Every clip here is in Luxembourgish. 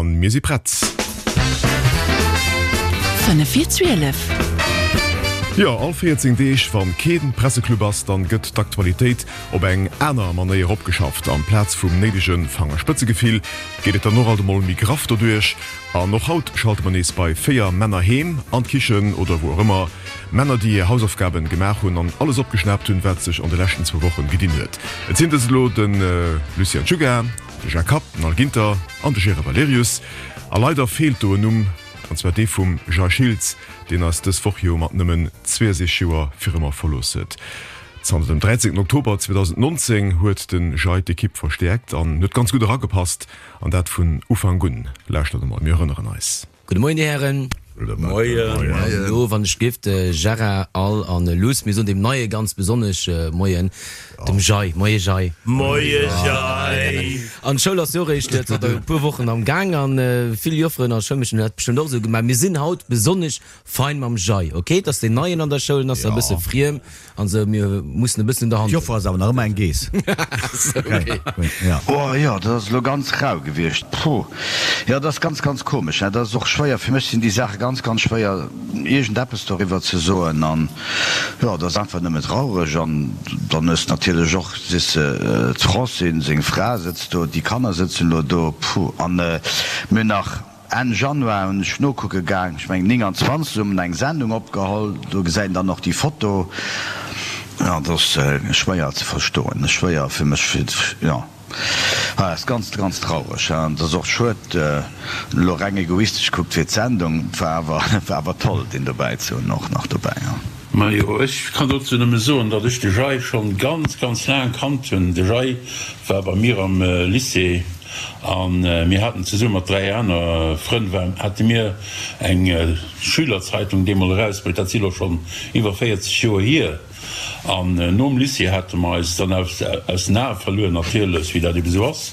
An mir si prett. 5 vir 12. Jo, all 14 Deeg, wann keen Presseclub ass, dann gëtt d'Aktualitéit op eng aner Manéier opgeschafft. Amplaz vum néidege Fangerspëtzegefill geet et dann och alt emol méi graff doduerch. An och haut schalte mer nees bei 4 Männer heem, an d'Kichen oder wou och ëmmer. Männer, déi hir Hausaufgaben gemaach hunn an alles opgeschnaapt hunn, wat sech an de leschten zwou Wochen gedinn huet. Et sinn dës elo de Lucien Czuga, De Jacques Kapp, den Al Ginter an de Gérard Valerius. A leider feelt do en Numm, an zwar dee vum Jay Schiltz, deen eis dës Woch jo mat nëmmen 62 Joer fir ëmmer verlooss huet. Zanter dem 13 Oktober 2019 huet de Jay d'Ekipp verstäerkt an huet ganz gutt eragepasst, an dat vun Ufank un. Lauschtert emol, mir erënneren eis. Gudde Moien, Dir Hären. Gudde Moien. An elo, wann ech giff, de Gérard, Al an Luss, mir soen deem Neie ganz besonnesch Moien, dem Jay. Moie Jay. Moie Jay. An d'Schoul ass jo och eréischt zanter e puer Wochen am Gaang an vill Jofferen a Schoulmeeschteren hunn dat bestëmmt och esou gemaach. Mir sinn haut besonnesch fein mam Jay, ok? Et ass deen Neien an der Schoul, en ass nach e bësse friem. An sou, mir mussen e bëssen un der Hand. D'Joffer ass awer nach ëmmer eng Geess. Okay. Oh jo, dat ass elo ganz rau gewiescht. Puh. Jo, dat ass ganz, ganz komesch. Dat ass och schwéier. Fir mech sinn déi Saache ganz, ganz schwéier, iergendeppes doriwwer ze soen. An jo, dat ass einfach nëmme traureg. An dann hues de natierlech och, siess de, d'Francine, seng Fra, sëtzt do, déi Kanner sëtzen elo do. Puh. An mir hunn nach. Enn Januar hunn ech nokucke gaang, ech mengen 29, hu mer eng Sendung opgeholl, do gesäit een dann och déi Foto. Jo, dat ass schwéier ze verstoen, schwéier fir mech, fir, jo, ah, ass ganz, ganz traureg. An et ass och schued, elo reng egoistesch gekuckt fir d'Sendung, et war awer, war awer toll, deen dobäi ze hunn, och nach dobäi, jo. Majo, ech kann dozou nëmme soen, datt ech de Jay schonn ganz, ganz laang kannt hunn. De Jay war bei mir am Lycée a mir haten zesumme mat 3 aner Frënn hate mir eng Schülerzeitung deemol erausbruecht. Dat si lo schonn iwwer 40 Joer hier. An nom Lycée hate mer eis dann aus den Ae verluer, natierlech, wéi dat ebe sou ass.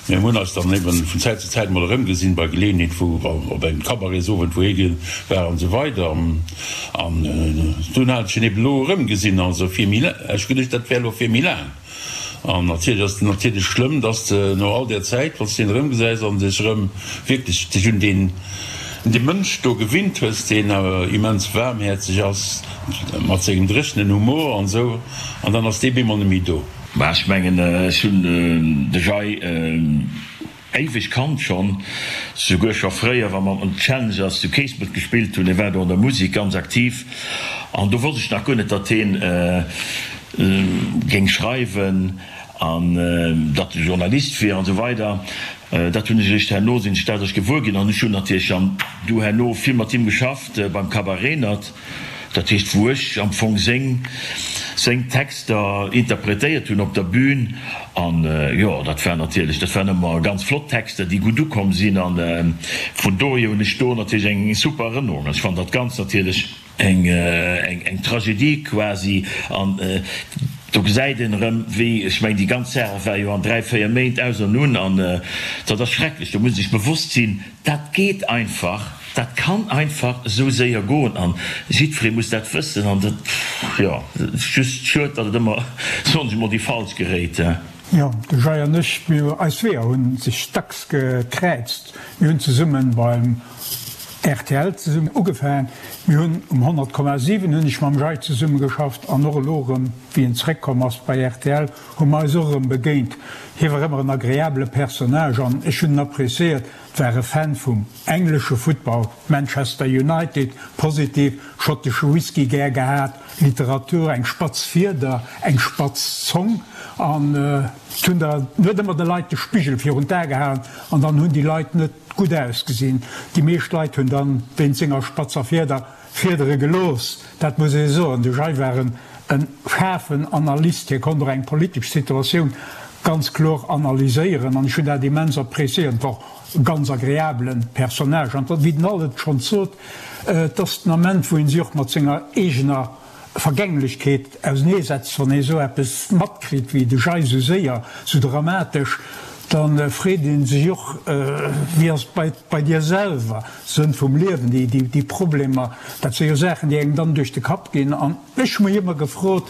Mä mir hunn eis dann eben vun Zäit zu Zäit emol erëmgesinn, bei Geleeënheet wou op engem Cabaretsowend, wou hie war an esou weider. An dunn hat ech en eben elo erëmgesinn, also fir méi, ech geduecht, dat wär elo fir méi laang. An natierlech ass et natierlech schlëmm, dass de no all där Zäit, wann s de en erëmgesäis an dech erëm wierklech dech un deen, un dee Mënsch do gewinnt hues, deen awer immens waarmhäerzeg ass, mat sengem dréchenen Humor an esou, an dann ass dee bemol net méi do. Mä ech mengen, ech hunn de Jay éiweg kannt schonn, souguer scho fréier, wa mer mat den Challengers zu Keespelt gespillt hunn. Hie war do an der Musek ganz aktiv an do wosst ech nach guer net, datt hien géing schreiwen an datt e Journalist wier an esou weider. Dat hunn ech eréischt herno, sinn ech dat eréischt gewuer ginn an ech hunn natierlech dann du herno vill mat him geschafft beim Cabaret Renert. Dat heescht, wou ech am Fong seng seng Texter interpretéiert hunn op der Bühn. An jo, dat war natierlech, dat waren ëmmer ganz flott Texter, déi gutt ukomm sinn. A vun dohier hunn ech do natierlech eng super Erënnerung. Ech fannen dat Ganzt natierlech eng eng Tragedie quasi. An do gesäit een erëm, wéi, ech mengen, déi ganz Saach war jo an 3, 4 Méint aus an un. An dat ass schrecklech. Do muss ee sech bewosst sinn, dat geet einfach. Dat kann einfach esou séier goen an jiddweree muss dat wëssen an dat, jo, et ass just schued, datt et ëmmer, soen ech emol, déi Falsch geréit. Jo, de Jay an ech, mir, eis Weeër hu sech dacks gekräizt. Mir hunn zesumme beim rtl zesummen ugefaangen. Mir hunn um 100,7 hunn ech mam Jay zesumme geschafft an och elo erëm, wéi en zeréckkomm ass bei rtl, hu mer eis och erëm begéint. Hie war ëmmer en agreabele Personnage an ech hunn en appréciéiert. War e Fan vum englesche Futtball, Manchester United, positiv, schottesche Whisky gär gehat, Literatur, eng spatz Fieder, eng spatz Zong an et hunn der huet ëmmer de Leit de Spigel virun d'A gehalen an dann hunn déi Leit net gutt ausgesinn. Déi meescht Leit hunn dann wéinst senger spatzer Fieder Fiedere gelooss, dat muss ee soen. De Jay war en schaarfen Analyst, hie konnt och eng politesch Situatioun ganz kloer analyséieren an ech hunn dat immens appréciéiert. Et war och e ganz agreabele Personnage an wéi den Al et schonns sot, et ass den Ament, wou ee sech och mat senger eegener Vergänglechkeet auseneesetzt, wann ee sou eppes matkritt wéi de Jay, sou séier, sou dramatesch, da freet ee sech och, wéi ass et bei dir selwer? Sënn vum Liewen, déi Problemer, dat si jo Saachen, déi engem dann duerch de Kapp ginn. An ech hu mech ëmmer gefrot,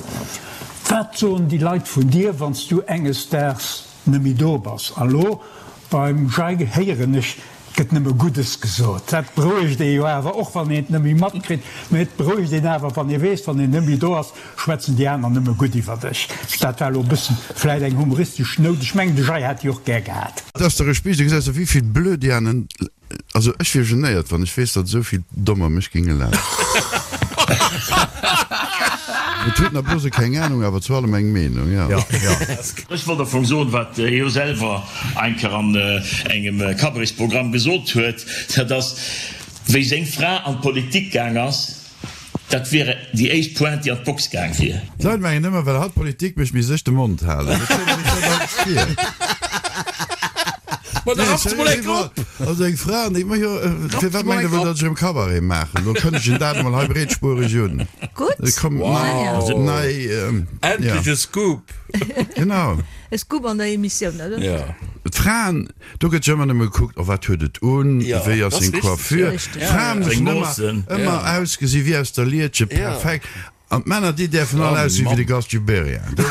Wat soen déi Leit vun dir, wann s du enges Daags net méi do bass? A lo beim Jay héieren ech. Et gëtt nëmme Guddes gesot. Dat berouegt ee jo awer, och wann een et net méi matkritt. Mä et berouegt een awer, wann ee weess, wann een net méi do ass, schwätzen déi aner nëmme gutt iwwer dech. Dat war elo e bëssen vläit eng humoristesch Nout. Ech mengen, de Jay hätt déi och gär gehat. Et ass dach e Spiicht, du gesäis der wéivill Blödianen Also ech wier genéiert wann ech weess datt esou vill Dommer mech géinge lachen. Et huet nach blose keng Ahnung awer zu allem eng Meenung, jo. Ech wollt am Fong soen, wat hie jo selwer eng Kéier an engem Cabaretsprogramm gesot huet, dat ass, wéi seng Fra an d'Politik gaang ass, Dat wier déi éischt Pointe, déi an d'Box gaang wier. D'Leit mengen ëmmer, well hatt Politik mécht, misst ech de Mond halen. Dat stelle ech mir alles vir. Ma da raff mol eng op! Also eng Fra, an déi, ma jo, firwat mengt Der wuel, datt ech erëm Cabaret maachen? Lo kënnegen dat emol hei breetspuereg un. Gutt. Et kommt nei, nei, ja. Endlech e Scoop! Genau. E Scoop an der Emissioun, oder? Ja. D'Fraen, Do gëtt jo ëmmer nëmme gekuckt, oh wat huet et un, wéi ass seng Coiffure. D'Frae mussen ëmmer, ëmmer ausgesi wéi aus der Lietche, perfekt. An d'Männer, déi däerfen all ausgesi wéi de Gast Gibéryen.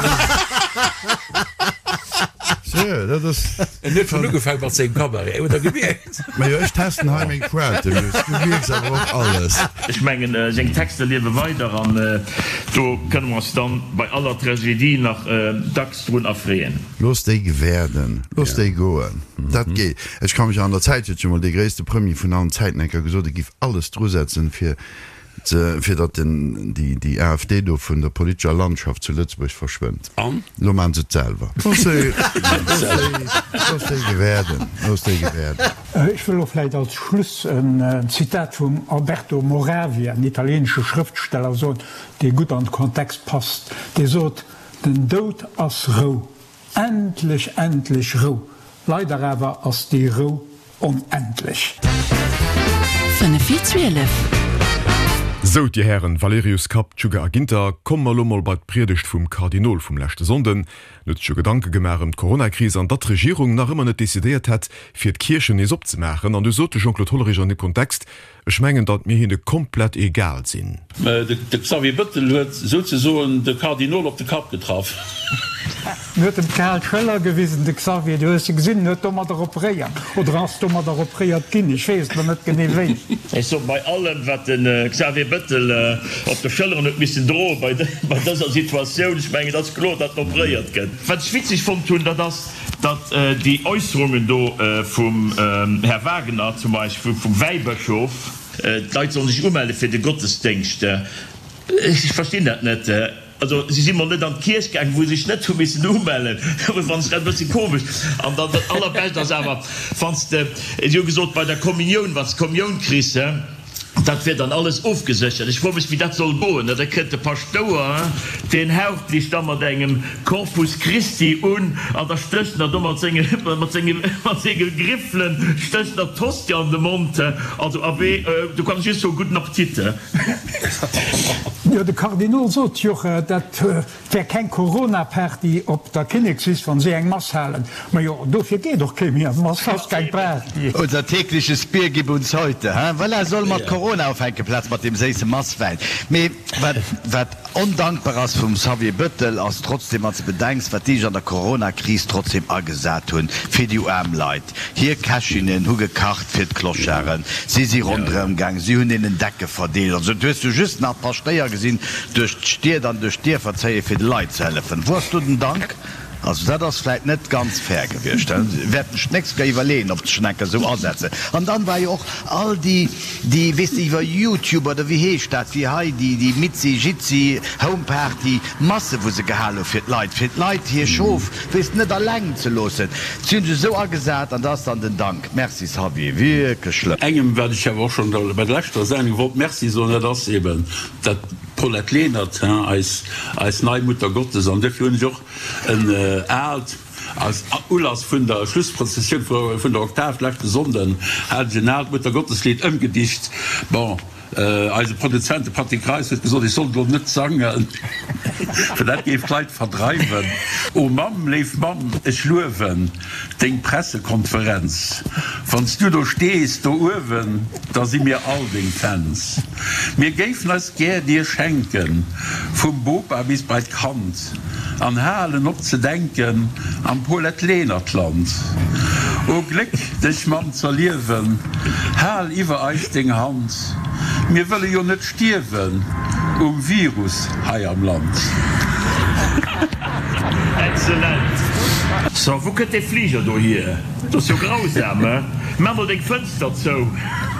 Seriö, dat ass. En huet schonn ugefaangen mat sengem Cabaret, huet Der gemierkt? Majo, ech testen hei meng Pointen just, du mierks awer och alles. Ech mengen, seng Texter liewe weider an do kënne mer eis dann bei aller Tragedie nach dacks drun erfreeën. Looss déi gewäerden, looss déi goen, dat geet. Ech ka mech an der Zäit huet jo mol dee gréisste Premier vun allen Zäiten eng Kéier gesot, e giff alles drusetzen, fir ze, fir datt den, déi, déi AfD do vun der politescher Landschaft zu Lëtzebuerg verschwënnt. An? Elo maachen se et selwer. Looss déi, looss déi, looss déi gewäerden, looss déi gewäerden. Ech wëll elo vläicht als Schluss en Zitat vum Alberto Moravia, en italieenesche Schrëftsteller, soen, dee gutt an de Kontext passt. Dee sot, Den Doud ass Rou, endlech, endlech Rou, leider awer ass déi Rou onendlech. 5 vir 12. Sou, dir Hären Valerius, Kapp, Tschugge a Ginter, komme mer elo mol bei d'Priedegt vum Kardinol vum leschte Sonnden. En huet sech jo Gedanke gemaach ëm d'Coronakris an datt d'Regierung nach ëmmer net decidéiert hätt, fir d'Kierchen nees opzemaachen. An du sot de Jean-Claude Hollerich an deem Kontext, Ech mengen, datt mir hinne komplett egal sinn. De Xavier Bëttel huet souzesoen de Kardinol op de Kapp getraff. En huet em d'kal Schëller gewisen, de Xavier, du hues se gesinn, en huet domadder operéiert, oder ass domadder operéiert ginn, ech weess et elo net genee wéi. Ech soen, bei allem, wat de Xavier Bëttel op de Schëlleren huet missen droen bei dëser Situatioun, ech mengen, et ass kloer, datt en operéiert gëtt. Wat ech witzeg fonnt hunn, dat ass, datt déi Äusserungen do vum Här Wagener, zum Beispill vum Wäibëschof, d'Leit sollen sech umelle fir de Gottesdéngscht, ech verstinn dat net. Also si si mol net an d'Kierch gaangen, wou se sech net hu missen umellen, dat fannen ech dat e bësse komesch. An dann dat Allerbescht ass awer, wann s de, si hu gesot, bei der Kommunioun, wann s de d'Kommioun kriss, Dat wier dann alles ofgeséchert. Ech froe mech, wéi dat soll goen. Da kënnt de Paschtouer, deen haucht lech da mat engem Corpus Christi un an da stécht en der do mat senge, mat senge, mat senge Griffelen stécht en der d'Hostie an de Mond. Also, abee, do kann ech just soen, Gudden Appetit. Jo, de Kardinol sot jo, dat Wär keng Corona-Party op der Kinnekswiss, wann si eng Mass halen. Majo, dofir geet och kee méi an d'Mass, ass keng Party. Unser tägliches Bier gib uns heute, he? Voilà, solle mer d'Corona ufänken, plaz mat deem séisse Masswäin. Mee wat, wat ondankbar ass vum Xavier Bettel, ass trotzdem, wann s de bedenks, wat déi sech an der Coronakris trotzdem agesat hunn fir déi aarm Leit. Hir Kächinnen hu gekacht fir d'Clocharden, si si ronderëm gaang, si hunn hinnen Decke verdeelt. Also du hues du just nach d'Paschtéier gesinn duerch d'Stied an duerch d'Dierfer zéie fir de Leit ze hëllefen. Wou ass do den Dank? Also dat ass vläit net ganz fair gewiescht. Dat wäerten ech d'nächst Kéier iwwerleeën, ob ech schonn eng Kéier esou asetzen. An dann war jo och all déi, déi, weess de, iwwer YouTube oder wéi heescht dat, wéi hei déi, déi Mitzi Jitzi Home Party Masse wou se gehal hu fir d'Leit, fir d'Leit hir Schof, Weess net alleng ze loossen. Si hunn sech esou agesat an da ass dann den Dank. Merci Xavier, wierklech schlëmm. Engem, wat ech awer och schonn bei der leschter Sendung wollt Merci soen, dat ass eben dat Paulette Lenert, eis, eis nei Mutter Gottes. An duerfir hunn ech och en aalt, als Ulass vun der Schlussprozessioun vun der Oktav leschte Sonnden, hat ech en aalt Muttergotteslidd ëmgedicht. Bon. Eise Produzent, de Patrick Reis, huet gesot, ech sollt elo net sangen, well dat géif d'Leit verdreiwen. O Mamm, léif Mamm, ech luewen deng Pressekonferenz. Wann s du do stees, do uewen, da si mir all deng Fans. Mir géifen eis gär dir schenken, vum Bopa bis bei d'Kand, an halen op ze denken am Paulette Lenert-Land. O Gléck, dech Mamm z'erliewen, hal iwwer eis deng Hand, mir wëlle jo net stierwen um Virus hei am Land. Excellent! So, wou kënnt dee Fliger do hier? Dat ass jo grausam, he? Maach mol deng Fënster zou!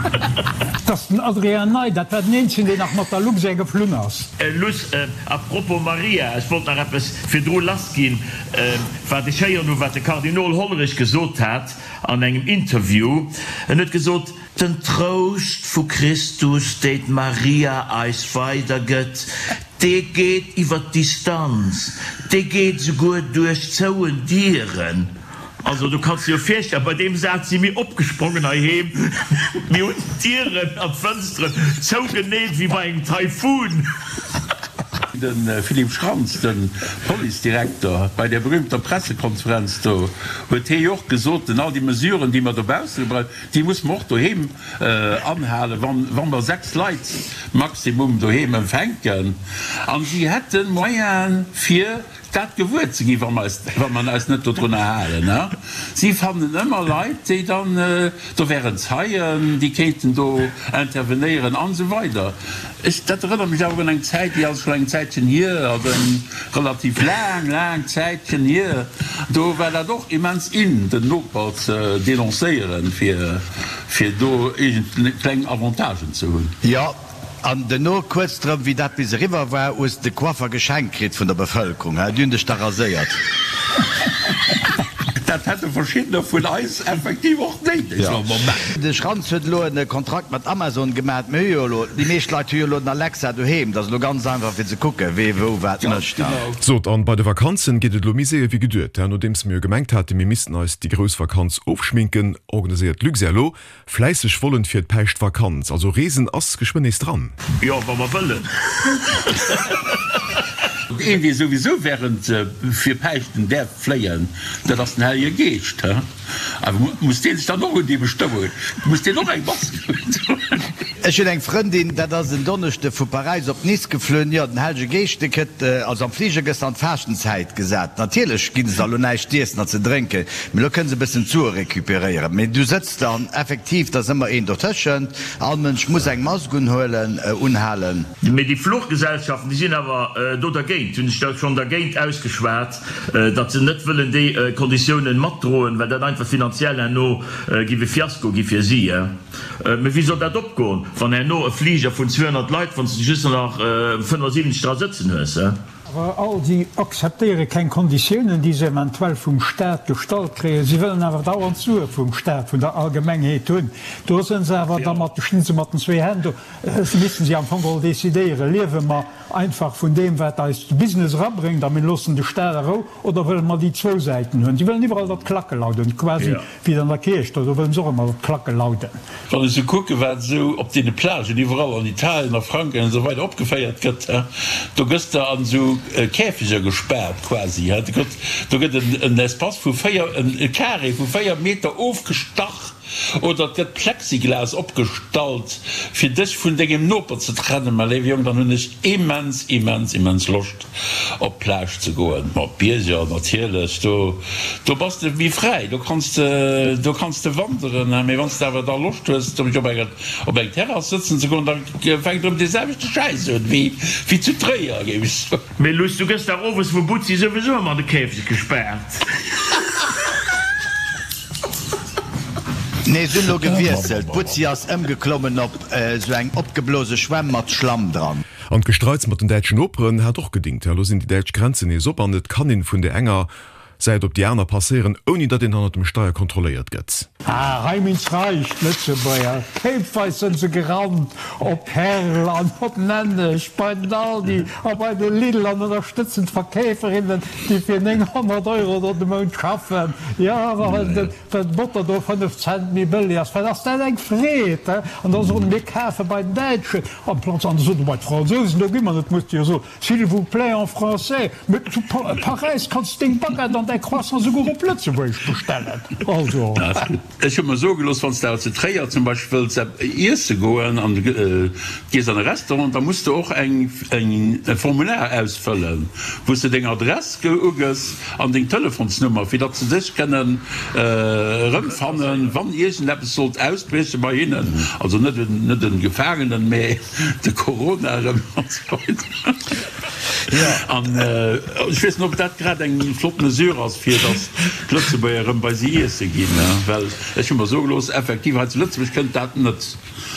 Dat ass den Adrien Ney, dat war den eenzegen, deen nach mat der Luxair geflunn ass. Luss, A propos Maria, ech wollt nach eppes virdru lassginn, wat ech héieren hu wat de Kardinol Hollerich gesot hat an engem Interview. En huet gesot, Den Trouscht vu Christus, deen d'Maria eis weidergëtt, dee geet iwwer d'Distanz, dee geet esouguer duerch zouen Dieren. Also du kanns dir jo virstellen, bei deem Saz si mir opgesprongen heiheem, mir hunn d'Dieren an d'Fënsteren zougeneet wéi bei engem Taifun. De Philippe Schrantz, de Policedirekter, bei där berühmter Pressekonferenz do huet hee jo och gesot, den all déi Mesuren, déi mer dobausse gebraucht, déi musse mer och doheem anhalen, wa mer 6 Leit maximum doheem empfänken. An si hätte Moyene fir Dat gewuer ze ginn, wa mer eis, wa mer eis net dodrunner halen. A si fannen ëmmer Leit, déi dann, do wären Zeien, déi kéinten do intervenéieren an esou weider. Ech, dat erënnert mech awer un eng Zäit, déi ass scho eng Zäitchen hier, also eng relativ laang, laang Zäitchen hier, do war dat och immens in, den Noper ze denoncéieren, fir, fir do iergend kleng Avantagen ze hunn. Jo, An duerno, kuerz drëm, wéi dat bis eriwwer war, hues de de Coiffer geschenkt kritt vun der Bevëlkerung, he? Déi hunn dech da raséiert. Dat hätte verschiddener vun eis effektiv och néideg am Moment. De Schranz huet elo e Kontrakt mat Amazon gemat. Mir hu jo elo, déi meescht Leit hu jo elo den Alexa doheem. Dat ass elo ganz einfach fir ze kucken, wee wou wat mécht. Sot, an bei de Vakanzen geet et elo méi séier wéi geduet. Nodeems mir jo gemengt haten, mir missten eis déi grouss Vakanz ofschminken, organiséiert d'Luxair elo Fläisseg Vollen fir d'Päischtvakanz, also Reesen ass geschwënn nees dran. Jo, wa mer wëllen. Een dee souwisou während fir Päischten däerf fléien, dat ass den Hellege Geescht, he? Awer muss dee sech dann och un déi Bestëmmungen, muss deen och eng Mask undoen? Ech hunn eng Frëndin, dat ass en Donneschde vu Paräis op Nice geflunn. Jo, den Hellege Geescht, dee kritt, also am Fliger gëss de an d'Faaschtenzäit gesat. Natierlech ginn se der elo näischt z'iessen an ze drénken, mee elo kënne se e bëssen d'Sue recuperéieren. Mee du sëtz dann effektiv, et ass ëmmer een dotëschent, all Mënsch muss eng Mask unhuelen, unhalen. Mee déi Fluchgesellschaften, déi sinn awer do dergéint, hunn sech da schonn dergéint ausgeschwat, datt se net wëllen déi Konditiounen matdroen, well dat einfach finanziell herno giff e Fiasko gi fir si. Mee wéi soll dat opgoen, wann herno e Fliger vun 200 Leit, wann s de just nach 75 dra sëtzen hues? Awer all si akzeptéiere keng Konditiounen, déi se eventuell vum Staat gestallt kréien. Si wëllen awer dauernd Sue vum Staat, vun der Allgemengheet hunn. Do sënn se awer da mat, stinn se mat den zwee Hänn do. Missten si am Fong geholl decidéieren, Liewe mer einfach vun deem, wat eis de Business erabréngt a mir loossen de Staat a Rou, oder wëlle mer déi zwou Säiten hunn? Si wëllen iwwerall, datt d'Klacke lauden, quasi wéi et an der Kierch, do wëllen se och ëmmer, datt d'Klacke lauden. Wann ech sou kucken, wat esou op deene Plagen iwwerall an Italien, a Frankräich an esou weider opgeféiert gëtt, do gëss de an esou Käfeger gespaart quasi, do gëtt en Espace vu 4, e Carré vu 4 Meter ofgestach oder et gëtt Plexiglas opgestallt, fir dech vun dengem Noper ze trennen. Mä léiwe Jong, dann hunn ech immens, immens, immens Loscht op d'Plage ze goen, ma op d'Bierger natierlech, do do bass de méi fräi, do kanns de do kanns de wanderen, mee wann s de awer da Loscht hues op enger op eng Terrass sëtzen ze goen, da fänkt erëm dee selwechte Schäiss un wéi wéi zu Tréier, géif ech soen. Mee Luss, du gëss dach owes vum Butzi souwisou ëmmer an de Käfeg gespaart. Nee, se hunn elo gewiesselt, d'Butzi ass ëmgeklommen op esou eng opgeblose Schwämm mat Schlamm dran. An d'Gestreits mat den däitschen Noperen hat och gedingt. Elo sinn déi däitsch Grenzen nees op an et kann een vun der enger Säit op déi aner passéieren, ouni datt een hannert dem Steier kontrolléiert gëtt. Ah, heim ins Reich, d'Lëtzebuerger! Kéipweis sënn se gerannt op Herl an op Nenneg, bei den Aldi a bei de Lidl an ënnerstëtzen d'Verkeeferinnen, déi fir 900 Euro do de Mount schaffen. Jo, awer well den Well d'Botter do 5 Cent méi bëlli ass, wat ass dat eng Freed, he? An da soen, mir kafe bei den Däitschen amplaz, an da soen bei d'Fransousen, do gi mer net, muss de jo soen, s'il vous plaît en français, mee zu Paräis kanns de deng Baguette an. däi Croissant souguer op Lëtzebuergesch bestellen. Also. Ech hu mer soe gelooss, wann s de awer zu Tréier zum Beispill wëlls iesse goen an du gees an e Restaurant, da muss de och eng e Formular ausfëllen, wou s de deng Adress ugëss an deng Telefonsnummer, fir datt se dech kënnen erëmfannen, wann iergendeppes sollt ausbrieche bei hinnen, also net net e Gefaangenen, mä de Corona erëm an esou weider. An ech weess net, ob dat grad eng flott Mesure ass, fir datt d'Lëtzebuerger erëm bei si iesse ginn, well ech hu mer soe gelooss, effektiv hei zu Lëtzebuerg kënnt dat net.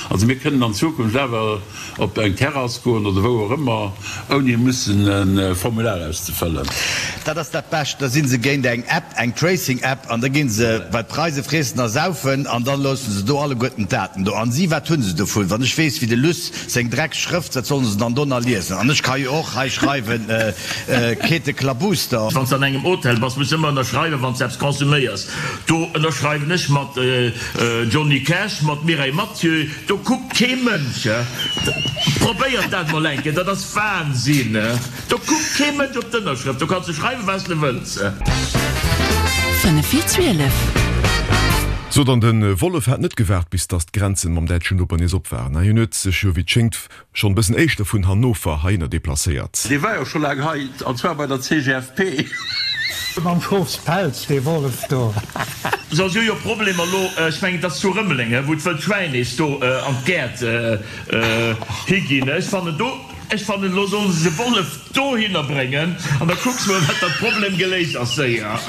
Also mir kënnen an Zukunft awer op eng Terrass goen oder wou och ëmmer, ouni mussen e Formular auszefëllen. Dat ass dat Bescht, da si se géint eng App, eng Tracing-App, an da gi se bei d'Preise friessen a saufen an da loosse se do alleguerten d'Daten do. An si, wat hu se dovun? Wann ech weess, wéi de Luss Seng drecks Schrëft, wat sollen se dann do nach liesen? An ech ka jo och hei schreiwen, Käte Klabuster. Wann s de an engem Hotel bass, muss de ëmmer ënnerschreiwen, wann s de eppes konsuméiers. Do ënnerschreiwen ech mat Johnny Cash, mat Mireille Mathieu, do kuckt kee Mënsch. Probéiert dat mol eng Kéier, dat ass Wahnsinn. Do kuckt kee Mënsch op d'Ënnerschrëft, do kanns de schreiwen, wat s de wëlls. 5 vir 12. Sot an de Wollef hat net gewaart bis dass d'Grenzen mam däitschen Noper nees op waren. Hien huet sech jo wéi et schéngt schonn e bëssen éischter vun Hannover heihinner deplacéiert. Dee war jo scho laang hei, an zwar bei der CGFP. Mam Schofspelz, dee Wollef do. So, si hu jo Problemer elo, ech mengen et ass zu Rëmeleng, wou d'wëllt Schwäin nees do an d'Gäert higinn. Ech fannen do. Ech fannen elo sollen se de Wollef dohinner bréngen an da kucks mol wat dat Problem geléist ass séier.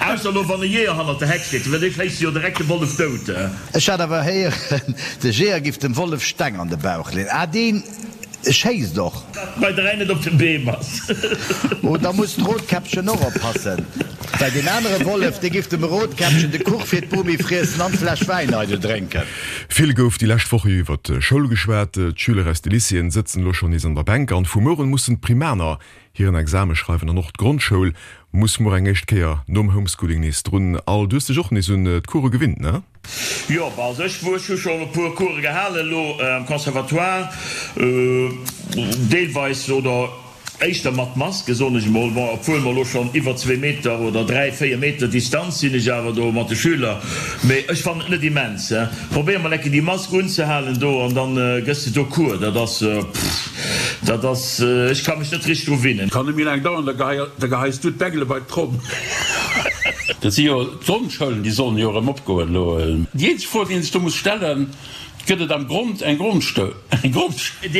Ausser elo wann e Jeeër hannert der Heck steet, well dee schéisst jo direkt de Wollef dout. Ech hat awer héieren, de Jeeër giff dem Wollef Steng an de Bauch leen. Ah, deen schéisst och. Bei 3 net op den Beem ass. Oh, da muss d'Rotkäppchen och oppassen, well deen anere Wollef, dee giff dem Rotkäppchen de Kuch fir d'Bomi friessen an d'Fläsch Wäin eidel drénken. Vill gouf déi lescht Woche jo iwwer d'Schoul geschwat. D'Schüler aus de Lycéeën sëtzen elo schonn nees an der Bänk an vu muer un mussen d'Primaner hiren Exame schreiwen an och d'Grondschoul muss muer eng éischt Kéier nom Homeschooling nees drun. Al, du hues dech och nees un d'Course gewinnt, ne? Jo, bah, also ech hu schonn e puer Course gehalen elo am Conservatoire, deelweis oder Éischter mat Maske, soen ech emol. Bon, obwuel mer elo schonn iwwer zwee Meter oder dräi, véier Meter Distanz sinn ech awer do mat de Schüler. Mee ech fannen et net immens. Probéier mol eng Kéier déi Mask unzehalen do an dann gëss de do Cours. Dat ass, pff, dat ass, ech ka mech net richteg dru winnen. Kann net méi laang dauern, da geheis du d'Bengele bei d'Tromm. Dat si jo d'Grondschoulen, déi sollen jo erëm opgoen elo. Déi eenzeg Fro, déi een sech do muss stellen, Gëtt et am Grond eng Grondstoul? Déi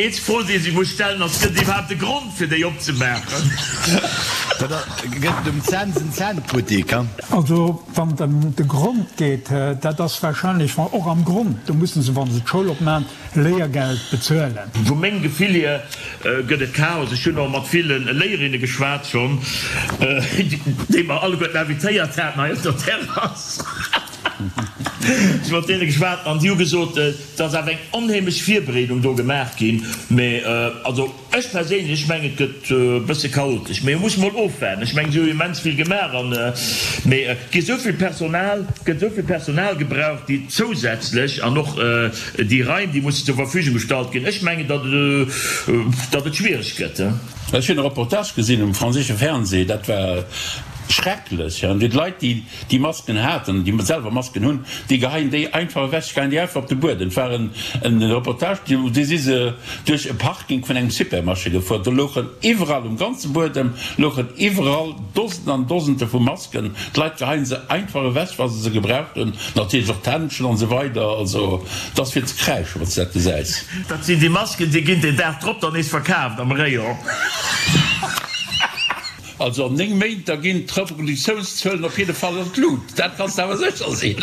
eenzeg Fro, déi ee sech muss stellen, ass, Gëtt et iwwerhaapt e Grond, fir déi opzemaachen? Gëtt et um Cents en Cent-Buttik? Also, wann et ëm de Grond geet, dat ass wahrscheinlech och am Grond, do musse se, wa se d'Schoul opmaachen, Léiergeld bezuelen. Vu mengem Gefill hier gëtt et Chaos. Ech hunn och mat ville Léierinne geschwat schonn, déi mer alleguerten invitéiert haten hei op der Terrass. Ech hu mat deene geschwat an déi hu gesot, et ass awer eng onheemlech Virbereedung do gemaach ginn. Mee also ech perséinlech mengen, et gëtt e bësse chaotesch. Mee muss mol ofwaarden. Ech mengen, si hu immens vill gemaach an, mee et gi esou vill Personal, et gëtt esou vill Personal gebraucht, déi zousätzlech an och déi Raim, déi mussen zur Verfügung gestallt ginn. Ech mengen, datt datt et schwiereg gëtt. Ech hunn e Reportage gesinn um franséische Fernseh, dat war schrecklech. Déi Leit, déi déi Masken haten, déi selwer Masken hunn, déi geheien déi einfach ewech, geheien déi einfach op de Buedem. Et war en Reportage, do si se duerch e Parking vun engem Supermarché gefuer, do louchen iwwerall um ganze Buedem louchen iwwerall Dosenden an Dosende vu Masken. D'Leit geheien se einfach ewech, wa se se gebraucht hunn, natierlech och d'Händschen an esou weider. Also et ass fir ze kräischen, wann s de dat gesäis. Dat sinn déi Masken, déi ginn den Dag drop dann nees verkaaft am Rayon. Also an 9 Méint, da ginn d'Reproduktiounszuelen op jidde Fall an d'Lut, dat kanns de awer sécher sinn.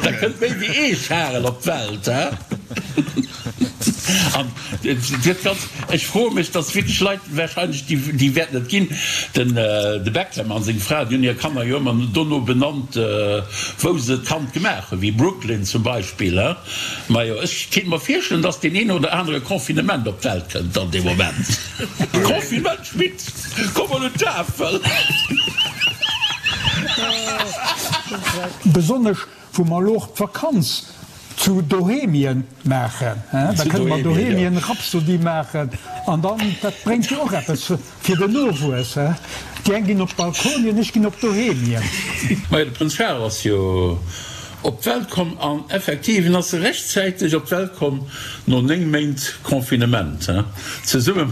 Da kënnt méi wéi ee Charel op d'Welt. An et gëtt ganz, ech froe mech, dass wierklech Leit wahrscheinlech, déi, déi wäerten et ginn, den de Beckham a seng Fra, déi hunn hir Kanner jo ëmmer dono benannt, wou se d'Kand gemaach hunn, wéi Brooklyn zum Beispill. Majo, ech kéint mer virstellen, dass deen een oder anere Confinement op d'Welt kënnt dann dee Moment. Confinement Schmitt, komm mol un d'Tafel! Besonnesch wou mer elo och d'Vakanz. Zu Dohemien maachen, da kënne mer Dohemien Rhapsody maachen an dann, dat bréngt jo och eppes fir den Nowuess, déi eng ginn op d'Balkonien, ech ginn op Dohemien. Majo, de Prënz Charles ass jo op d'Welt komm an effektiv, en ass rechtzäiteg op d'Welt komm no 9 Méint Confinement, zesumme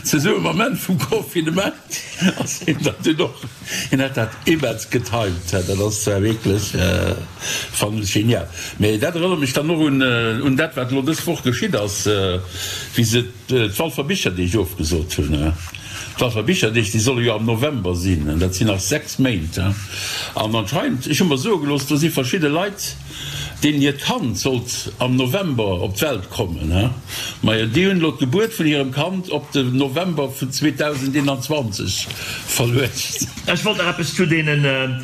Zesumme mam Enn vum Confinement ass hien dann dunn och, hien hat dat immens getimed, dat ass zwar wierklech, fannen ech genial. Mee dat erënnert mech dann och un un dat wat elo dës Woch geschitt ass, wéi se d'Walfer Bicherdeeg ofgesot hunn. D'Walfer Bicherdeeg, déi solle jo am November sinn, dat sinn nach 6 Méint. An anscheinend, ech hu mer soe gelooss, do si verschidde Leit, Deenen hiert Kand sollt am November op d'Welt kommen, he? Majo, déi hunn elo d'Gebuert vun hirem Kand op de November vun 2021 verluecht. Ech wollt nach eppes zu deene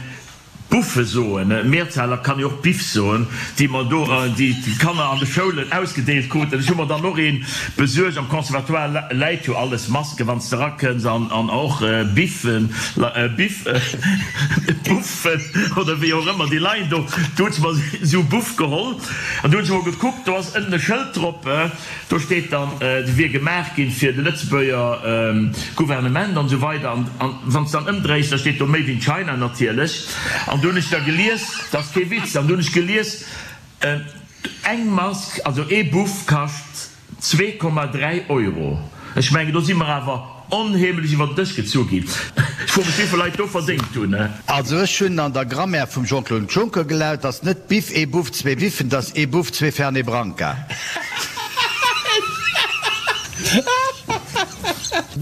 Buffe soen, Mehrzahl kann jo och Biff soen, déi mer do, déi d'Kanner an de Schoulen ausgedeelt kruten. Ech hu mer dann och ee besuergt. Am Conservatoire läit jo alles, Masken, wann s de erakënns, an och Biffen, Biff, Buff. Buffen oder wéi och ëmmer, déi leien do. Do hunn se mer esou Buff geholl an do hunn se mol gekuckt, do ass ënnen e Schëld drop, do steet dann, dee wier gemaach ginn fir de Lëtzebuerger Gouvernement an esou weider. An wann s de dann ëmdréis, da steet do Made in China natierlech. An do hunn ech da gelies, dat ass kee Witz, an do hunn ech gelies, eng Mask, also ee Buff kascht 2,3 Euro. Ech mengen, do si mer awer onheemlech iwwer den Dësch gezu ginn. Ech froe mech, wéivill Leit do verdéngt hunn. Also ech hunn an der Grammaire vum Jean-Claude Juncker gelaut, dass net Biff, ee Buff, zwee Biffen, dass ee Buff, zwee Fernet Branca.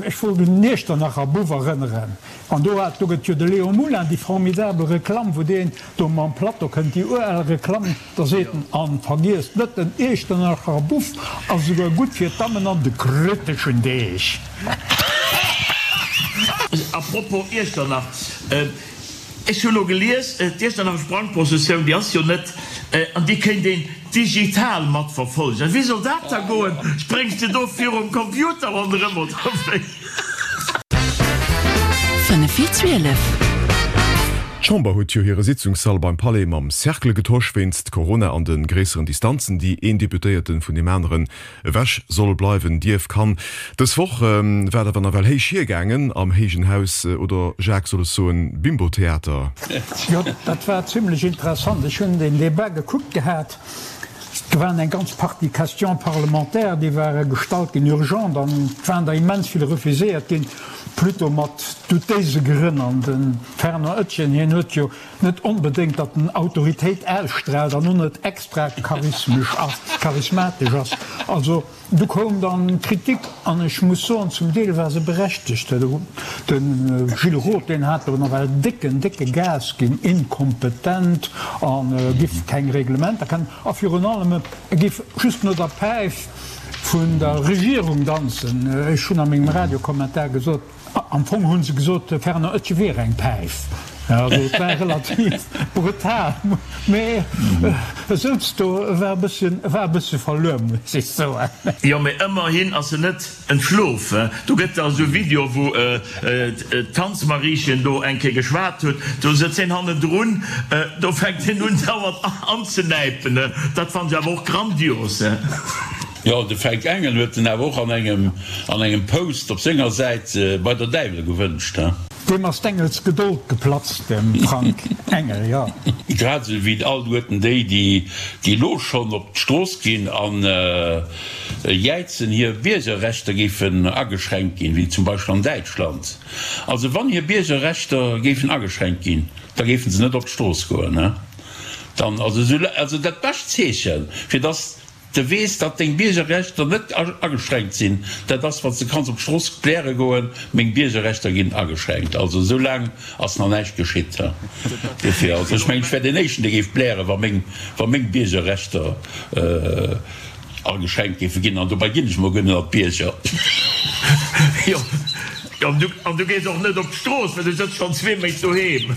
Ech wollt un den Iechternacher Buff erënneren. An do hat, do gëtt jo de Léon Moulin déi formidabel Reklamm, wou deen do mam Plateau kënnt, déi ural Reklamm, Da seet en, An vergiesst net, den Iechternacher Buff ass esouguer gutt fir d'Dammen an de kriteschen Deeg. A propos Iechternach, ech hu lo gelies, d'Iechternacher Sprangprozessioun, déi ass jo net, an déi kéint een digital matverfollegen. Wéi soll dat da goen? Spréngs de do virum Computer ronderëm oder wéi? 5 vir 12. D'Chamber huet jo hire Sitzungssall beim Palais mam Cercle getosch, wéinst Corona an de gréisseren Distanzen, déi een Deputéierte vun deem aneren ewech soll bleiwen, dierf, kann. Dës Woch war et awer nawell héich hiergaangen am héijen Haus, oder Jacques, soll ech soen Bimbo-Theater? Jo, dat war zimlech interessant. Ech hunn deen Debat gekuckt gehat. Do waren eng ganz Partie Questions parlementaires, déi ware gestallt ginn, urgent, an et waren der immens vill refuséiert ginn, plutôt mat doutéise Grënn. An de Fernand Etgen, hien huet jo net onbedéngt, datt en Autoritéit ausstraalt an och net extra charismesch ass, charismatesch ass. Also Du koum dann d'Kritik, an ech muss soen, zum Deel war se berechtegt. De Gilles Roth, deen hat do nawell décken, décke Gas ginn, inkompetent a giff keng Reglementer kennen a virun allem, e giff just no der Päif vun der Regierung danzen. Ech hunn a mengem Radiokommentar gesot, Am Fong hu se gesot, de Fernand Oetjen wier eng Päif. Also et war relativ brutal, mee e souz do, e war e bësschen, e war e bëssche verluer, muss ech soen. Jo, mee ëmmerhin ass en net entschlof. Do gëtt da esou Video, wou d'Tanzmariechen do eng Kéier geschwat huet, do sëtzt hien hannendrun, do fänkt hien un dauernd anzenäipen. Dat fannen ech awer och grandios. Jo, de Fränk Engel huet en awer och an engem an engem Post op senger Säit bei der Däiwel gewënscht, he? Deem ass d'Engels Gedold geplatzt, dem Frank Engel, jo. Grad esou wéi alleguerten déi, déi déi elo schonn op d'Strooss ginn an jäizen, hir Biergerrechter géifen ageschränkt ginn, wéi zum Beispill an Däitschland. Also wann hir Biergerrechter géifen ageschränkt ginn, da géifen se net op d'Strooss goen, he? Dann, also esou, also dat bescht Zeechen, fir dass De weess, datt deng Biergerrechter net ageschränkt sinn. Dat ass, wann s de kanns op d'Strooss bläre goen, Meng Biergerrechter ginn ageschränkt. Also esou laang ass nach näischt geschitt. Dofir, also ech mengen, ech wär deen Éischten, dee géif blären, wa meng, wa meng Biergerrechter ageschränkt géife ginn. An dobäi ginn ech mol guer net an d'Bierger. Jo, an du gees och net op d'Strooss, well du sëtz schonn zwee Méint doheem.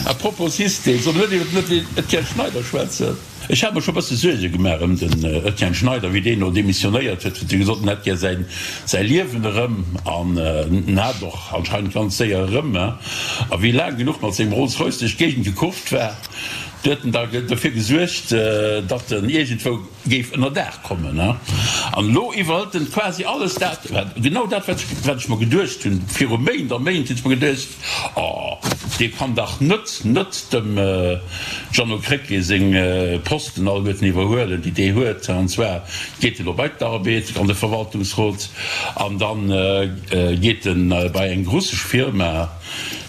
A propos System, solle mer net iwwer den Etienne Schneider schwätzen? Ech hat mer scho bësse Suerge gemaach ëm den Etienne Schneider, wéi deen do demissionéiert huet, huet e gesot, en hätt gär säin säi Liewen erëm an en hat och anscheinend ganz séier erëm. A wéi laang genuch mat sengem Rolls-Royce duerch d'Géigend gekurft war, Do huet en da dofir gesuergt, datt en iergendwou géif ënnerdaach kommen. An elo iwwerhëlt en quasi alles dat, genau dat, wat ech mer geduecht hunn viru Méint a Méint, hunn ech mer geduecht, Oh, dee kann dach net net dem Jeannot Krecké seng Posten alleguerten iwwerhuelen, déi dee huet. An zwar geet en elo bei d'Arbed an de Verwaltungsrot an da geet en bei eng russesch Firma,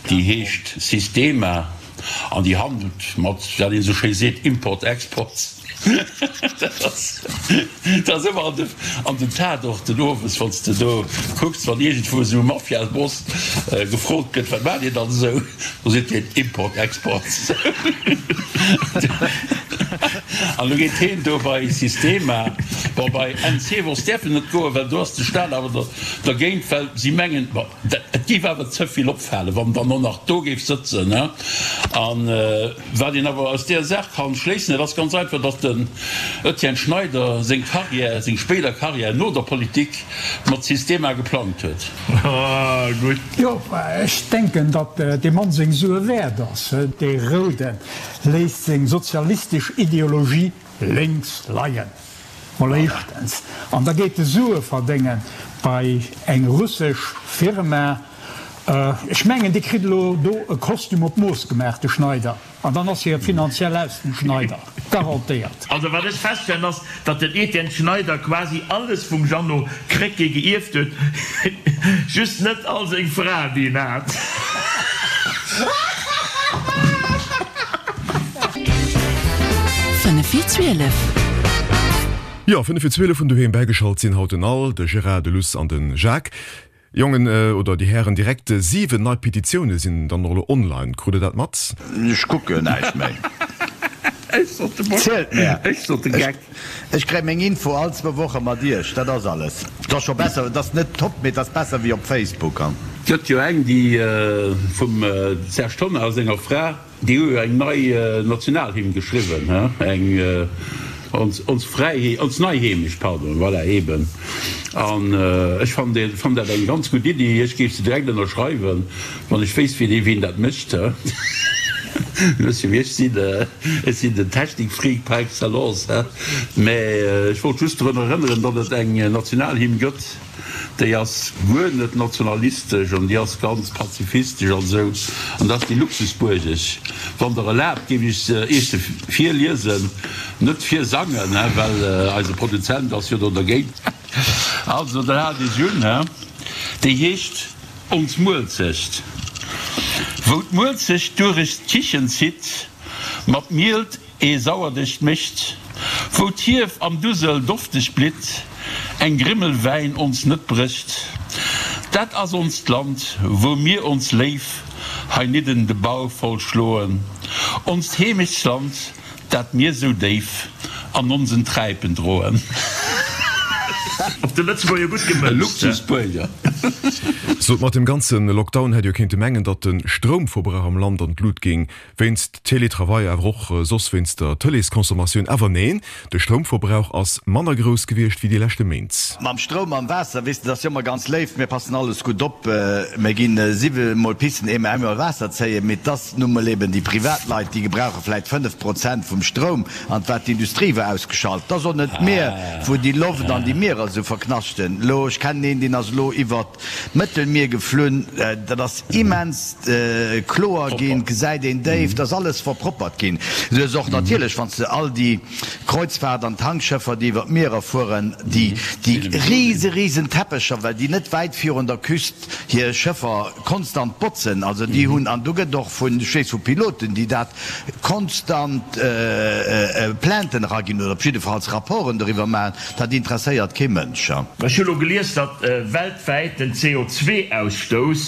déi heescht Sistema an déi handelt mat, wat een esou schéi seet, Import-Export. Dat ass ëmmer an den Tatorten owes, wann s de do kucks, wann iergendwou esou e Mafiaboss gefrot gëtt, wat maacht Dir dann esou, da seet hien, Import, Export. An elo geet hien do bei Sistema, bon bei NC Wolz däerf en net goen, well do ass de Staat awer dergéint, well si mengen, bon, et géif awer ze vill opfalen, wann en dann och nach do géif sëtzen. An. Wat een awer aus deer Saach kann schléissen, dat ass ganz einfach, datt den Etienne Schneider seng Carrière, seng spéider Carrière no der Politik mat Sistema geplangt huet. Gutt. Jo, ech denken, datt dee Mann seng Sue wäert ass. Dee Rouden léisst seng sozialistesch Ideologie lénks leien, mol éischtens, an da geet e Sue verdénge bei eng russesch Firma. Ech mengen, dee kritt elo do e Kostüm op d'Mooss gemaach, de Schneider, an dann ass hie finanziell aus dem Schneider, garantéiert. Also wat ech feststellen ass, datt den Etienne Schneider quasi alles vum Jeannot Krecké geierft huet, just net all seng Fraen déi en hat. 5 vir 12. Jo, 5 vir 12 vun doheem bäigeschalt sinn haut den Al, de Gérard, de Luss an de Jacques. Jongen oder déi Hären, direkt 7 nei Petitioune sinn dann och elo online. Krut der dat mat? Ech kucken näischt méi. Zielt mär. Ech kréie meng Info all zwou Woche mat iech, dat ass alles. Et ass scho besser, et ass net top, mee et ass besser wéi op Facebook. Gëtt jo eng déi vum Serge Tonnar a senger Fra. Déi hu jo eng nei Nationalhymn geschriwwen, he, eng ons, ons Fräiheet, ons nei Heemecht, pardon, voilà, eben. An ech fannen déi, fannen dat eng ganz gutt Iddi. Ech géif se direkt ënnerschreiwen, wann ech wéisst, wien, wien dat mécht, he. Wësst jo, wéi ech sinn, ech sinn den Technikfreak par excellence, he. Mä ech wollt just drun erënneren, datt et eng Nationalhymn gëtt. Déi ass guer net nationalistesch an déi ass ganz pazifistesch an esou. An dat ass déi Luxusbuergesch. Wann Der erlaabt, géif ech se Iech se virliesen, net virsangen, he, well eise Produzent ass jo do dergéint. Also, dann haalt Iech un, he. Déi heescht Ons Muelzecht. Wou d'Muelzecht durech d'Kichen zitt, mat Mielt Ee Sauerdeg mécht, wou d'Hief am Dusel dofteg blitt, eng Grimmel Wäin ons net brécht. Dat ass onst Land, wou mir ons léif heinidden de Bauch voll schloen, onst Heemechtsland, dat mir sou déif an onsen Träipen droen. Op de Lëtzebuerger gutt E gemënzt. Luxusbuerger. Sot, mat dem ganze Lockdown hätt jo kéinte mengen, datt de Stroumverbrauch am Land an d'Lut géing. Wéinst Teletravail, awer och soss wéinst der Tëleesconsommatioun. Awer neen, de Stroumverbrauch ass manner grouss gewiescht wéi déi leschte Méint. Mam Stroum, mam Waasser, weess de, dat ass jo ëmmer ganz léif, mir passen alles gutt op, mir ginn siwe mol pissen, ehe mer eemol Waasser zéien, mee et ass nu mol eben déi privat Leit, déi gebrauche vläit 5 Prozent vum Stroum, an wat d'Industrie war ausgeschalt. Et ass och net d'Mier, wou déi Loft an déi Mierer esou verknaschten. Elo, ech kennen een, deen ass elo iwwert D'Mëttelmier geflunn, dat ass immens kloer ginn, gesäit een déif, dat ass alles verproppert ginn. Du hues och natierlech, wann s de all déi Kreuzfahrt an Tankschëffer, déi iwwer d'Mierer fueren, déi rise risen Teppecher, well déi net wäit virun der Küst hir Schëffer konstant botzen, also déi hunn, an do gëtt och vun, ech weess vu Piloten, déi dat konstant Plainten eraginn oder op jiddefalls Rapporten doriwwer maachen, dat interesséiert kee Mënsch. Ech hu lo gelies, datt weltwäit den CO2-Ausstouss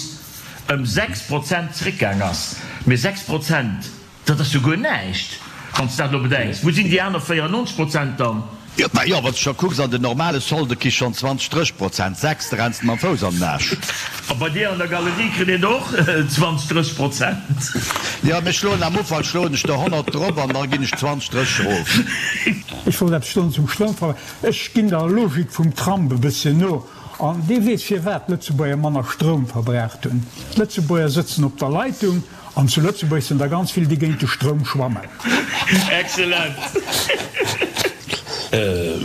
ëm 6 Prozent zréckgaang ass. Mee 6 Prozent, dat ass jo guer näischt, wann s de dat elo bedenks. Wou sinn déi aner 94 Prozent dann? Jo, mä jo, wann s de scho kucks, an den normale Solde ki schonn 20, 30 Prozent, 6, da renns de mam Fouss an den Aasch. A bei dir an der Galerie kritt een och 20, 30 Prozent. Jo, mir schloen am Ufank schloen ech der 100 drop an da ginn ech 20, 30 erof. Ech wollt eppes soen zum Stroumverbrauch. Ech ginn der Logik vum Trump e bësschen no. An dee weess firwat d'Lëtzebuerger manner Stroum verbraucht hunn. D'Lëtzebuerger sëtzen op der Leitung. An zu Lëtzebuerg sinn der ganz vill, déi géint de Stroum schwammen. Excellent!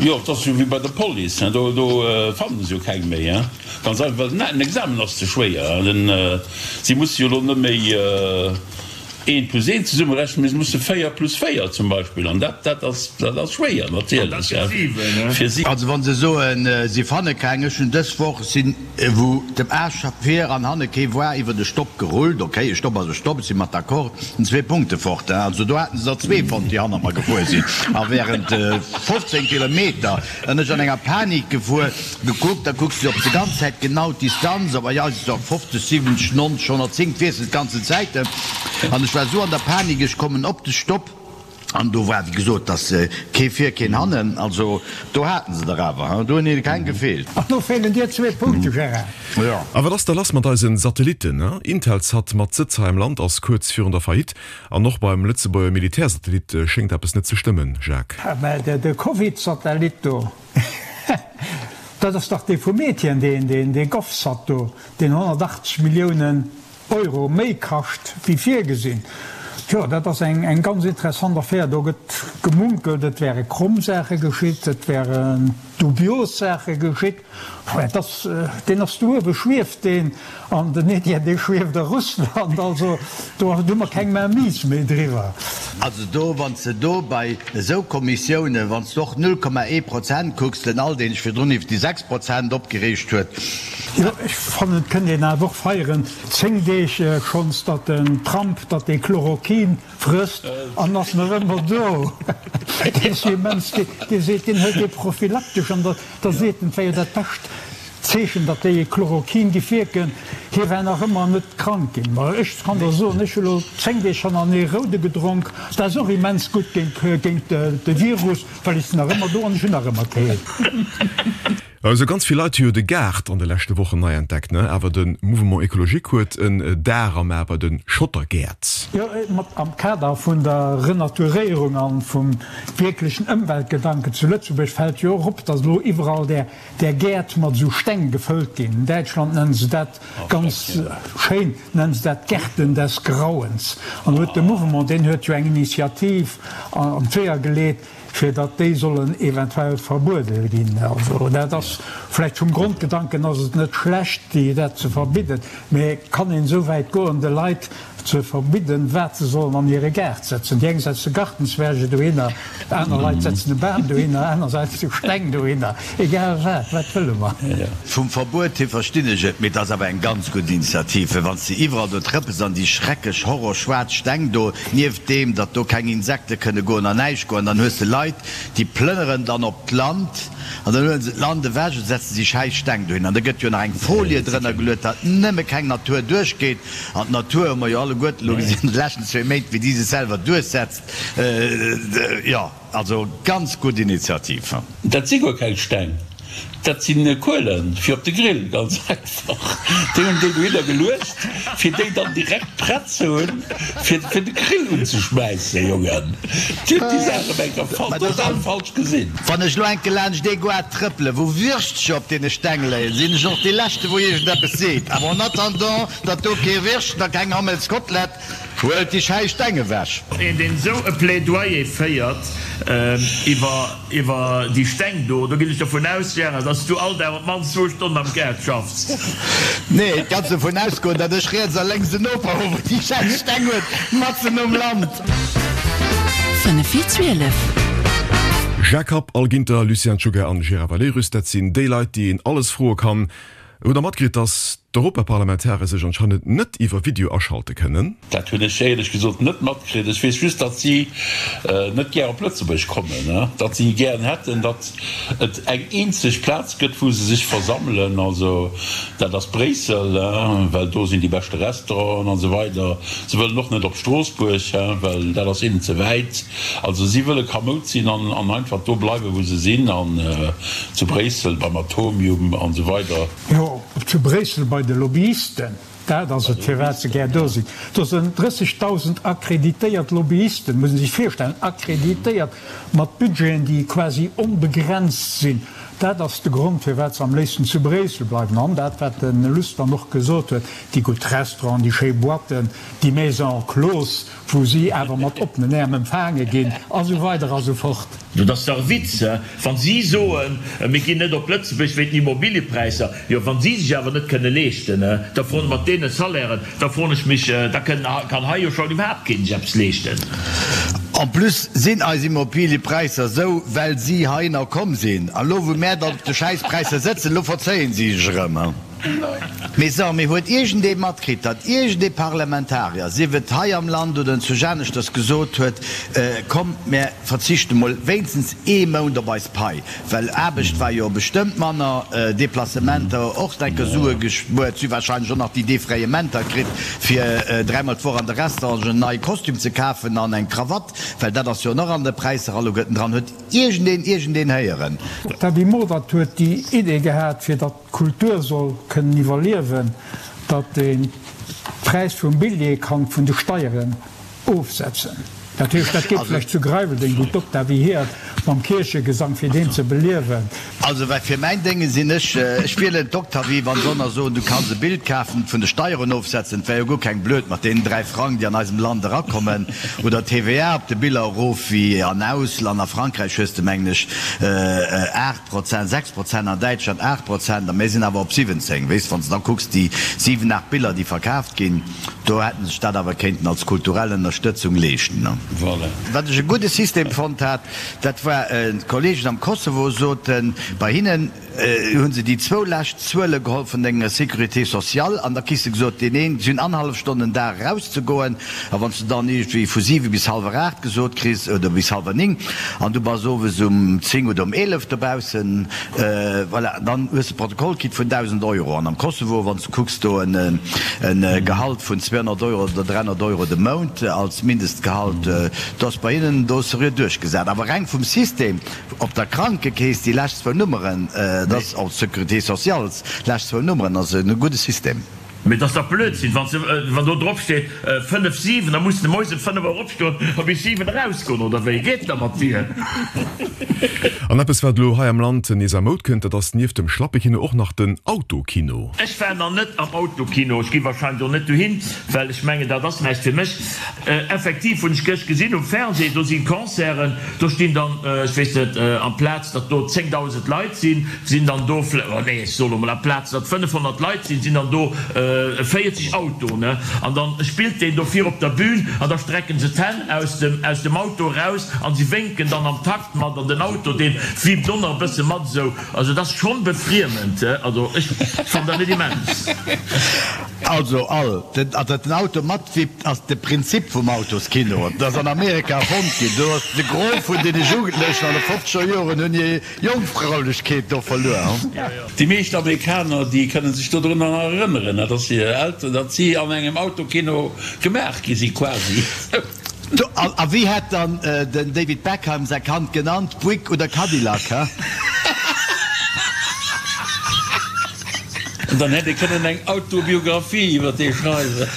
Jo, et ass jo wéi bei der Police, do fannen se jo keng méi, ganz einfach, well den Examen ass ze schwéier. Si musse jo elo net méi eent plus eent zesummerechnen, mee se musse 4 plus 4 zum Beispill, an dat, dat ass, dat ass schwéier natierlech fir si. Also wa se soen, si fanne keng, ech hunn dës Woch sinn, wou dem Aarsch vir an hanne kee war, iwwert e Stopp gerullt, ok, e Stopp ass e Stopp, ech si mat d'accord, sinn zwee Punkte fort, also do haten se der zwee fonnt, déi hannert mer gefuer sinn, a während 15 Kilometer en ech an enger Panik gefuer. Gekuckt, da kucks de op de ganz Zäit genau d'Distanz, op bei eis ass et och 50, 70, 90, 110, d'wiesselt d'ganzen Zäiten an ech war esou an der Panik, ech kommen op de Stopp an do war wéi gesot, dass kee vir, keen hannen, also do haten se der awer, hein, do hunn hinne keng gefeelt. An do feelen dir zwee Punkte, Gérard. Jo. A wat ass da lass mat eisen Satellitten? Intelsat mat Sëtz hei am Land ass kuerz virun der Faillite an och beim Lëtzebuerger Militärsatellit schéngt eppes net ze stëmmen, Jacques. Mä de Covid-Satellit do, Dat ass dach dee vum Etienne, deen, deen, dee GovSat do, deen 180 Milliounen Euro méi kascht wéi virgesinn. Jo, dat ass eng, eng ganz interessant Affär. Do gëtt gemunkelt, et wäre kromm Saache geschitt, et wären dubios Saache geschitt. Et ass, deen ass do uewe, schwieft deen, an den Etienne, dee schwieft a Russland. Also do hu mer keng Mainmise méi driwwer. Also do, wann s de do bei esou Kommissiounen, wann s de och 0,1 Prozent kucks, den Al, deen sech virdrun iwwer déi 6 Prozent opgereegt huet. Jo, ech fannen, et kënnt een awer och feieren, 10 Deeg schonns, datt den Trump, datt dee Chloroquin frësst an ass nach ëmmer do. Dee ass jo immens, dee seet, deen hëlt dee prophylaktesch an da seet en, et wär jo dat bescht Zeechen, datt déi Chloroquin giff wierken. Hie wär nach ëmmer net krank ginn. Ma ech kann der soen, ech hu lo 10 Deeg hannerenee Roude gedronk, dat ass och immens gutt géint de Virus, well ech sinn nach ëmmer do an ech hunn nach ëmmer keen. Esou ganz vill Leit hu jo de Gaart an de leschte Wochen nei entdeckt, ne? Awer de Mouvement Ecologique huet en Dar am A bei de Schottergäert. Jo, mat am Kader vun der Renaturéierung an vum wierklechen Ëmweltgedanken zu Lëtzebuerg fält jo och op, datt elo iwwerall där där Gäert mat esou Steng gefëllt ginn. In Däitschland nennen se dat ganz schéin, nennen se dat Gärten des Grauens. An do huet de Mouvement, deen huet jo eng Initiativ an d'Weeër geleet, fir datt déi sollen eventuell verbuede ginn. Also dat ass vläicht vum Grondgedanken ass et net schlecht, déi dat ze verbidden, mä kann een esou wäit goen, de Leit ze verbidden, wat se sollen an hire Gaart setzen? Déi eng setze Gartenzwerge dohinner, aner Leit setzen e Bam dohinner, aner setze Steng dohinner, egal wat, wat wëlle mer? Vum Verbuet hier verstinn ech et, mee et ass awer eng ganz gutt Initiativ, well wann s de iwwerall do trëppels an déi schrecklech horrorschwaarz Steng do, nieft deem datt do keng Insekte kënne goen an näischt goen, dann hues de Leit, déi plënneren dann op d'Land an dann huele se d'Land ewech an setze si schäiss Steng dohin an da gëtt jo nach eng Folie drënner geluet, datt nëmme keng Natur duerchgeet. An d'Natur hu mer jo alleguerten elo gesinn an de leschten zwee Méint, wéi déi sech selwer duerchsetzt. Jo, also ganz gutt Initiativ. Dat si guer keng Steng, dat si Kuelen fir op de Grill, ganz einfach. Déi hunn déi dohinner geluecht, fir déi dann direkt prett ze hunn, fir fir de Grill unzeschmäissen. Jongen, Dir hutt déi Saach ëm eng Kéier total falsch gesinn. Wann ech lo enke laanscht ee Goart trëppelen, wou Würstcher op deene Steng léien, sinn ech och dee Leschte wou iergendeppes seet. Awer en attendant, datt do kee Würstchen a keng Hammelskotelett Huelt déi schäiss Steng ewech! Een deen esou e Plädoyer féiert iwwer iwwer déi Steng do, do ginn ech dovun aus, Gérard, dass du all Dag op d'mannst zwou Stonnen am Gaart schaffs. Nee, et kanns dovun ausgoen, datt ech riets a lénks en Noper hu wou déi schäiss Steng huet, matzen um Land. 5 vir 12. Jacques Happ, Al Ginter, Lucien Czuga an Gérard Valerius, dat sinn déi Leit, déi een alles froe kann. Hutt der matkritt, dass d'Europaparlamentare sech anscheinend net iwwer Video aschalte kënnen? Dat hunn ech éierlech gesot net matkritt. Ech weess just, datt si net gär op Lëtzebuerg kommen, datt si gären hätten, datt et eng eenzeg Plaz gëtt, wou se sech versammelen. Also dat ass Bréissel, well do sinn déi beschte Restauranten an esou weider. Se wëllen och net op Stroossbuerg, well dat ass hinnen ze wäit. Also si wëlle kamoud sinn an einfach do bleiwen, wou se sinn, an zu Bréissel beim Atomium an esou weider. Jo, zu Bréissel bei de Lobbyisten, dat ass et, firwat se gär do sinn. Do sinn 30.000 akkreditéiert Lobbyisten, muss ee sech virstellen, akkreditéiert, mat Budgeten, déi quasi onbegrenzt sinn. Dat ass de Grond, firwat se am léifsten zu Bréissel bleiwen. An dat, wat de Luss dann och gesot huet, déi gutt Restauranten, déi schéi Boîten, déi Maisons closes, wou si awer mat oppenen Äerm empfaange ginn, a sou weider a sou fort. Dat ass dach e Witz, he? Wa si soen, mir ginn net op Lëtzebuerg wéint den Immobiliëpräisser, jo, wa si sech awer net kënne leeschten, he, da froen, mat deene Salairen, da froen ech mech, da kënn, kann hei jo schon iwwerhaapt keen sech eppes leeschten. En plus sinn eis Immobiliëpräisser esou, well si heihinner komm sinn. An elo, wou mär dann op de Schäisspräisser sëtzen, elo verzéien si sech erëm, he. Mee so, mee huet iergendee matkritt, datt iergendee Parlamentarier, sief et hei am Land oder enzwousch aneschters, gesot huet, Kommt, mär verzichte mol wéinstens ee Mount op eis Pai, well Aarbecht war jo bestëmmt manner, Deplacementer och enker Sue gespuert, si hu warscheinlech och nach déi Defrayementer kritt, fir dräimol d'Woch an de Restaurant en neie Kostüm ze kafen an eng Krawatt, well dat ass jo och an de Präisser alleguerten dran. Huet iergendeen iergendeen héieren? D'Gaby Modert huet déi Idee gehat, fir datt d'Kultur soll kënnen iwwerliewen, datt een d'Präis vum Billjee kann vun de Steieren ofsetzen. Dat heescht, dat geet vläicht zu Greiweldeng, wou d'Octavie Hirt mam Kierchegesang, fir deen ze beliewen. Also well fir mäin Dénge sinn ech, ech wielen d'Octavie, wann se ënner soen, du kanns e Bild kafen, vun de Steieren ofsetzen, et wär jo guer keng blöd mat deenen 3 Frang, déi an eisem Land erakommen, oder d'TVA op de Biller erof wéi an Ausland, a Frankräich hues de mengen ech 8. Prozent, 6 Prozent an Däitschland 8 Prozent a mir sinn awer op 17. Weess, wann s de da kucks déi 7, 8 Biller, déi verkaaft ginn, do hätte sech dat awer kéinten als kulturell Ënnerstëtzung leeschten. Voilà. Wat ech e gudde System fonnt hat, dat war, d'Kollegen am Kosovo soten, bei hinnen hu se déi zwou lescht Zuele geholl vun denger Sécurité sociale an da kriss de gesot, deen een, si hunn annerhallef Stonn den Dag erauszegoen, A wann s de dann iergendwéi vu 7 bis hallwer 8 gesot kriss, oder bis hallwer 9, an du bass owes um 10 oder um 11 dobaussen, voilà, dann hues de Protokoll kritt vun 1.000 Euro. An am Kosovo, wann s de kucks, do en Gehalt vun 200 Euro oder 300 Euro de Mount als Mindestgehalt, do ass bei hinnen do seriö duerchgesat. Awer reng vum System, op der Krankekeess déi lescht zwou Nummeren, dat ass, och d'Sécurité sociale, lescht zwou Nummeren, ass e gudde System. Mee et ass dach Blödsinn, wann se, wann do drop steet 5, 7, da muss de moies ëm 5 Auer opstoen a bis 7 erausgoen, oder wéi geet da mat dir? An eppes wat elo hei am Land nees a Moud kënnt, dat ass nieft dem Schlappekino och nach den Autokino. Ech war nach net am Autokino, ech gi wahrscheinlech och net dohin, well ech mengen dat ass näischt fir mech. Effektiv hunn ech gëscht gesinn um Fernseh, do si Concerten, do stinn dann, ech weess net, amplaz datt do 10.000 Leit sinn, Sinn dann do, oh nee, ech soe lo mol, amplaz datt 500 Leit sinn, sinn dann do 40 Autoen, an dann spillt deen do vir op der Bühn an da strecken se d'Hänn aus dem, aus dem Auto eraus an si wénken dann am Takt mat an den Auto deen wippt och nach e bësse mat esou. Also et ass schonn befriemend, also ech fannen dat net immens. Also all, datt den Auto matwippt ass de Prinzip vum Autoskino. Dat ass an Amerika erfonnt ginn. Do ass de Gros vun deene Jugendlechen an de fofzeger Joren hunn hir Jongfraulechkeet do verluer. Déi meescht Amerikaner, déi kënne sech dodrunner nach erënneren, datt hir Elteren, datt si an engem Autokino gemaach gi si quasi. A wéi hätt dann den David Beckham säi Kand genannt, Buick oder Cadillac, he? An dann hätt ee kënnen eng Autobiographie iwwer dee schreiwen.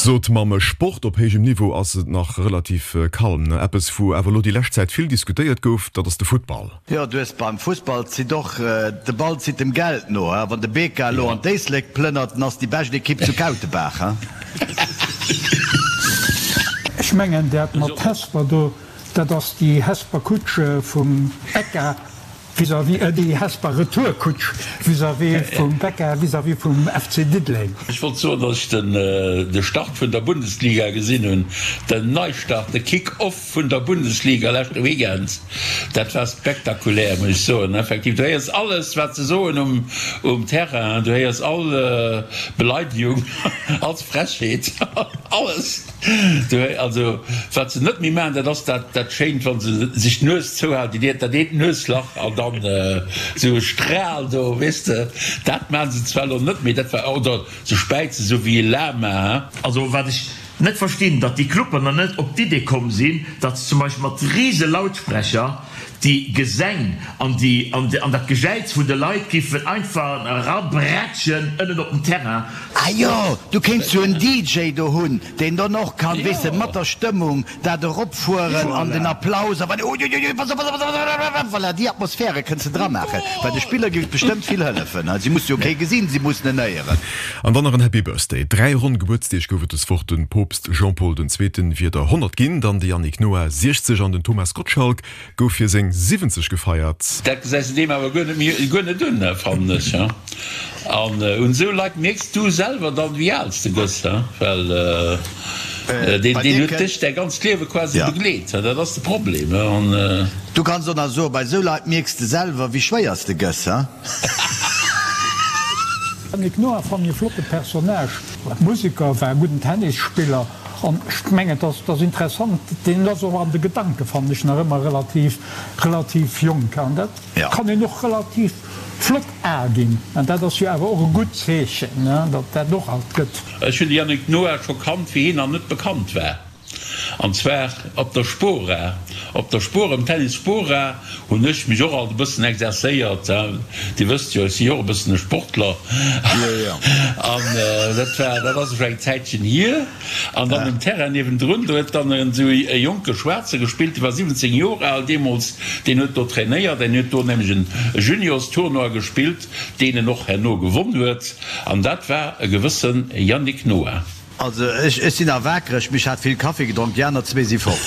Sot mam Sport op héijem Niveau ass et nach relativ kalm. Eppes wou awer elo déi lescht Zäit vill diskutéiert gouf, dat ass de Futtball. Jo, du hues beim Fussball zitt och de Ball zitt dem Geld no. Wann de BK elo an d'Éislek plënnert, dann ass déi bescht Ekipp zu Kautebaach. Ech mengen dat mat Hesper do, dat ass déi Hesper Kutsch vum Becca. Vis-à-vis, déi Hesper Retourkutsch vis-à-vis vum Becca, vis-à-vis vum FC Diddeleng. Ech wollt soen, datt ech den de Start vun der Bundesliga gesinn hunn, den Neistart, de Kick-Off vun der Bundesliga leschte Weekend. Dat war spektakulär, muss ech soen. Effektiv, du héiers alles, wat se soen um um Terrain, du héiers all Beleidegung, all Frechheet, alles. Also wat se net méi maachen, dat ass dat dat schéint, wa se sech d'Nues zouhalen, déi dat eent Nueslach an dann esou e Stral do, weess de. Dat maache se zwar elo net méi, dat war, oder se späizen esou wéi e Lama. Also wat ech. Net verstinn, datt déi Clubber nach net op d'Idee komm sinn, datt se zum Beispill mat rise Lautsprecher déi Gesäng an déi an dat Gejäiz vun de Leit giffen einfach erabrätschen ënnen op den Terrain. Ah jo, du kéints jo en DJ do hunn, deen dann och kann, weess de, mat der Stëmmung dat eropfueren an den Applaus a uiuiui, pass op, pass op, pass op, voilà, déi Atmosphäre kënns de dramaachen, well de Spiller géif et bestëmmt vill hëllefen. Si musse jo kee gesinn, si mussen en héieren. An dann nach en Happy Birthday. 3 ronn Gebuertsdeeg gouf et des Woch, Den Poopst Jean-Paul den Zweeten wier der 100 ginn, dann de Yannick Noah 60 an den Thomas Gottschalk gouf fir seng 70 gefeiert. Dat gesäis de deem awer guer net méi, guer net un, fannen ech. An un esou Leit mierks du selwer dann, wéi al s de gëss, well deen, deen huet dech däi ganzt Liewe quasi begleet. Dat ass de Problem. An. Du kanns och nach soen, bei esou Leit mierks de selwer, wéi schwéier s de gëss. Yannick Noah fannen e flotte Personnage, Museker, war e gudden Tennisspiller an ech mengen et ass interessant, deen ass och an de Gedanke fannen ech nach ëmmer relativ relativ jonk an dat kann een och relativ flott al ginn an dat ass jo awer och e gutt Zeechen, datt dat och alt gëtt. Ech hunn de Yannick Noah scho kannt wéi hien nach net bekannt war. An zwar op der Spora. Op der Spora, um Tennis Spora hunn ech mech och alt e bëssen exerzéiert. Dir wësst jo, ech si jo och e bëssen e Sportler. An dat war, dat ass elo eng Zäitchen hier. An dann um Terrain niewendrun, do huet dann esou e jonke Schwaarze gespillt, dee war 17 Joer al deemools, deen huet do trainéiert. En huet do nämlech en Juniorstournoi gespillt, deen en och herno gewonn huet. An dat war e gewësse Yannick Noah. Also ech ech sinn nach waakreg, mee ech hat vill Kaffi gedronk, déi aner zwee si fort.